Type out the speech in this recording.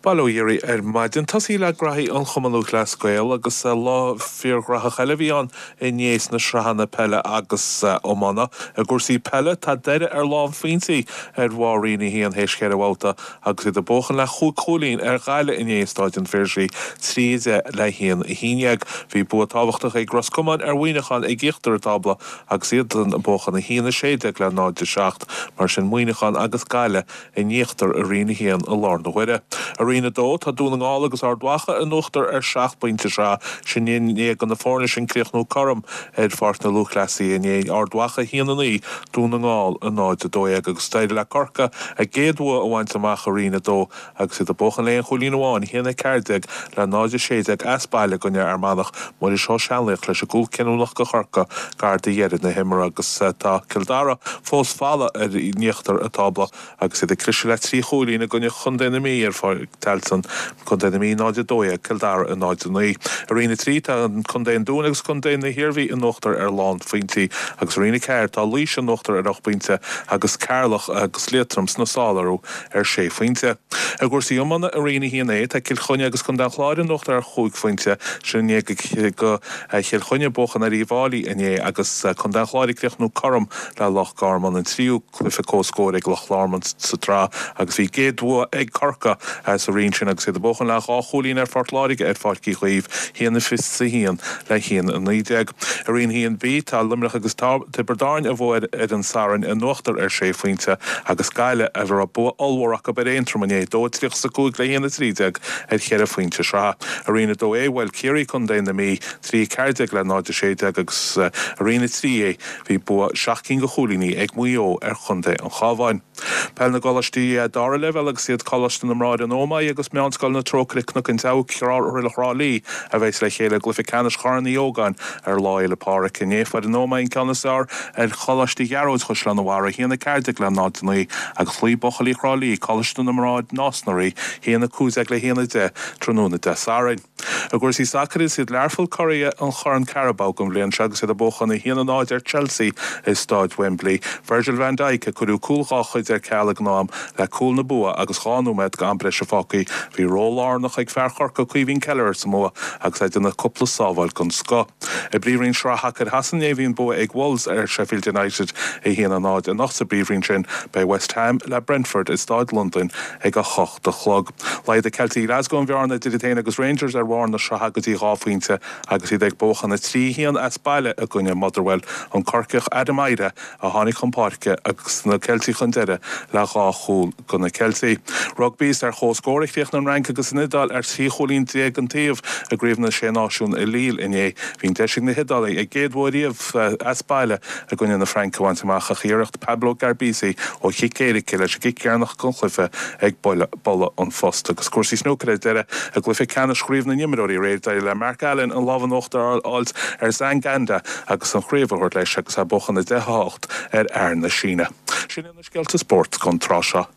Bail ó Dhia oraibh ar maidin. Tosaí le graithí an Chumann Lúthchleas Gael agus lá fíorghraitheach eile a bhí ann inné sna sraitheanna peile agus iomána. I gcúrsaí peile, tá Doire ar lánphointí ar bharr Roinn 1 théis cheithre bhabhta agus iad ag buachan le chúig chúilín ar Ghaillimh inné i Stáid an Phiarsaigh, 3, 10 le 1, 11. Bhí bua tábhachtach ag Ros Comáin ar Mhuineachán ag íochtar an tábla agus iad ag buachan 1, 16 le 0, 7. Mar sin Muineachán agus Gaillimh in íochtar i Roinn 1 i láthair na huaire. I Roinn 2, tá Dún na nGall agus Ard Mhacha in uachtar ar sheacht bpointe sraithe, sin i ndiaidh do na foirne sin críochnú cothrom ar Pháirc na Lúthchleasaithe inné, Ard Mhacha 1, 9, Dún na nGall 0, 12, agus d'éirigh le Corcaigh a gcéad bhua a bhaint amach i Roinn 2 agus iad ag buachan le aon chúilín amháin, 1, 14 le 0, 16, as baile i gcoinne Fhear Manach, Muiris Ó Seanlaoich leis an gcúl cinniúnach do Chorcaigh gar do dheireadh na himeartha agus tá Cill Dara fós folamh ar in íochtar an tábla agus iad ag cliseadh le 3 chúilín i gcoinne Chontae na Mí ar Pháirc Tailteann, Contae na Mí 0, 12, Cill Dara 0, 9. I Roinn 3 tá Contae an Dúin agus Contae na hIarmhí in uachtar ar lánphointí agus i Roinn 4 tá Laois in uachtar ar 8 bpointe agus Ceatharlach agus Liatroim sna sála orthu ar sé phointe. I gcúrsaí iomána i Roinn 1A, tá Cill Chainnigh agus Contae an Chláir in uachtar ar chúig phointe, sin i ndiaidh do Chill Chainnigh buachan ar Uíbh Fháilí inné agus Contae an Chláir ag críochnú cothrom le Loch Garman, an tríú cluiche comhscóir ag Loch Garman sa tsraith agus bhí a gcéad bhua ag Corcaigh sa roinn sin agus iad ag buachan le dhá chúilín ar Phort Láirge ar Pháirc Uí Chaoimh, 1-21 le 1-19. I Roinn 1B, tá Luimneach agus Tiobraid Árann a bhuaigh ar an Satharn in uachtar ar sé phointe agus Gaillimh, a raibh bua ollmhór acu ar Aontroim inné, 2-35 le 1-13 ar cheithre phointe sraithe. I Roinn 2A, bhuail Ciarraí contae na Mí, 3-14 le 0-16 agus i Roinn 3A bhí bua seacht gcinn de chúilíní ag Maigh Eo ar chontae an Chabháin. Peil na gColáistí Dara Leibhéal agus iad Coláiste na mBráithre an Ómaigh agus Meánscoil na Trócaire Cnoc an tSeabhaic Thrá Lí a bheas le chéile i gcluiche ceannais Chorn Uí Ógáin ar Lá Fhéile Pádraig inné. Fuair an Ómaigh an ceann is fearr ar Choláiste Ghearóid Chaisleán an Bharraigh, 1-14 le 0-9, agus chloígh buachaillí Thrá Lí Coláiste na mBráthar Nás na Rí, 1-15 le 1-10, tráthnóna Dé Sathairn. I gcúrsaí sacair, is iad Learpholl curaidh an Chorn Carabao don bhliain seo agus iad ag buachan 1-0 ar Chelsea i Stáid Wembley. Virgil van Dijk a cuireadh cúl dhá chuid ar ceal ag an am le cúl na bua agus 2 nóiméad d'am breise fágtha. Bhí ról lárnach ag fear Chorcaí Caoimhín Kelleher sa mbua agus é ag déanamh cúpla sábháil den scoth. I bPríomhroinn Sraith Shacair Shasana inné bhí an bua ag Wolves ar Sheffield United 1-0. Anocht sa bPríomhroinn sin beidh West Ham le Brentford i Stáid Londain ag 8 a chlog. Laghdaigh Ceiltigh Ghlasgow an bhearna idir iad féin agus Rangers ar bharr na sraithe go dtí 2 phointe agus iad ag buachan 3-1 as baile i gcoinne Motherwell. An Corcaíoch Adam Idah a tháinig chun páirce agus na Ceiltigh chun deiridh le dhá chúl do na Ceiltigh. Rugbaí Is ar comhscór a chríochnaigh an Fhrainc agus an Iodáil ar 13 chúilín an taobh i gCraobh na Sé Náisiún i Lille inné. Bhí an deis ag na hIodálaigh a gcéad bhua riamh as baile i gcoinne na Fraince a bhaint amach ach iarracht Pablo Garbisi ó chic éirice leis an gcic dheireanach den chluiche ag bualadh an phost. Agus cúrsaí snúcair ar deireadh i gcluiche ceannais Chraobh na nImreoirí aréir d'éirigh le Mark Allen an lámh in uachtar a fháilt ar Zhang Anda agus an chraobh a thabhairt leis agus é ag buachan 10 8 ar fhear na Síne. Sin iad na scéalta spóirt don tráth seo.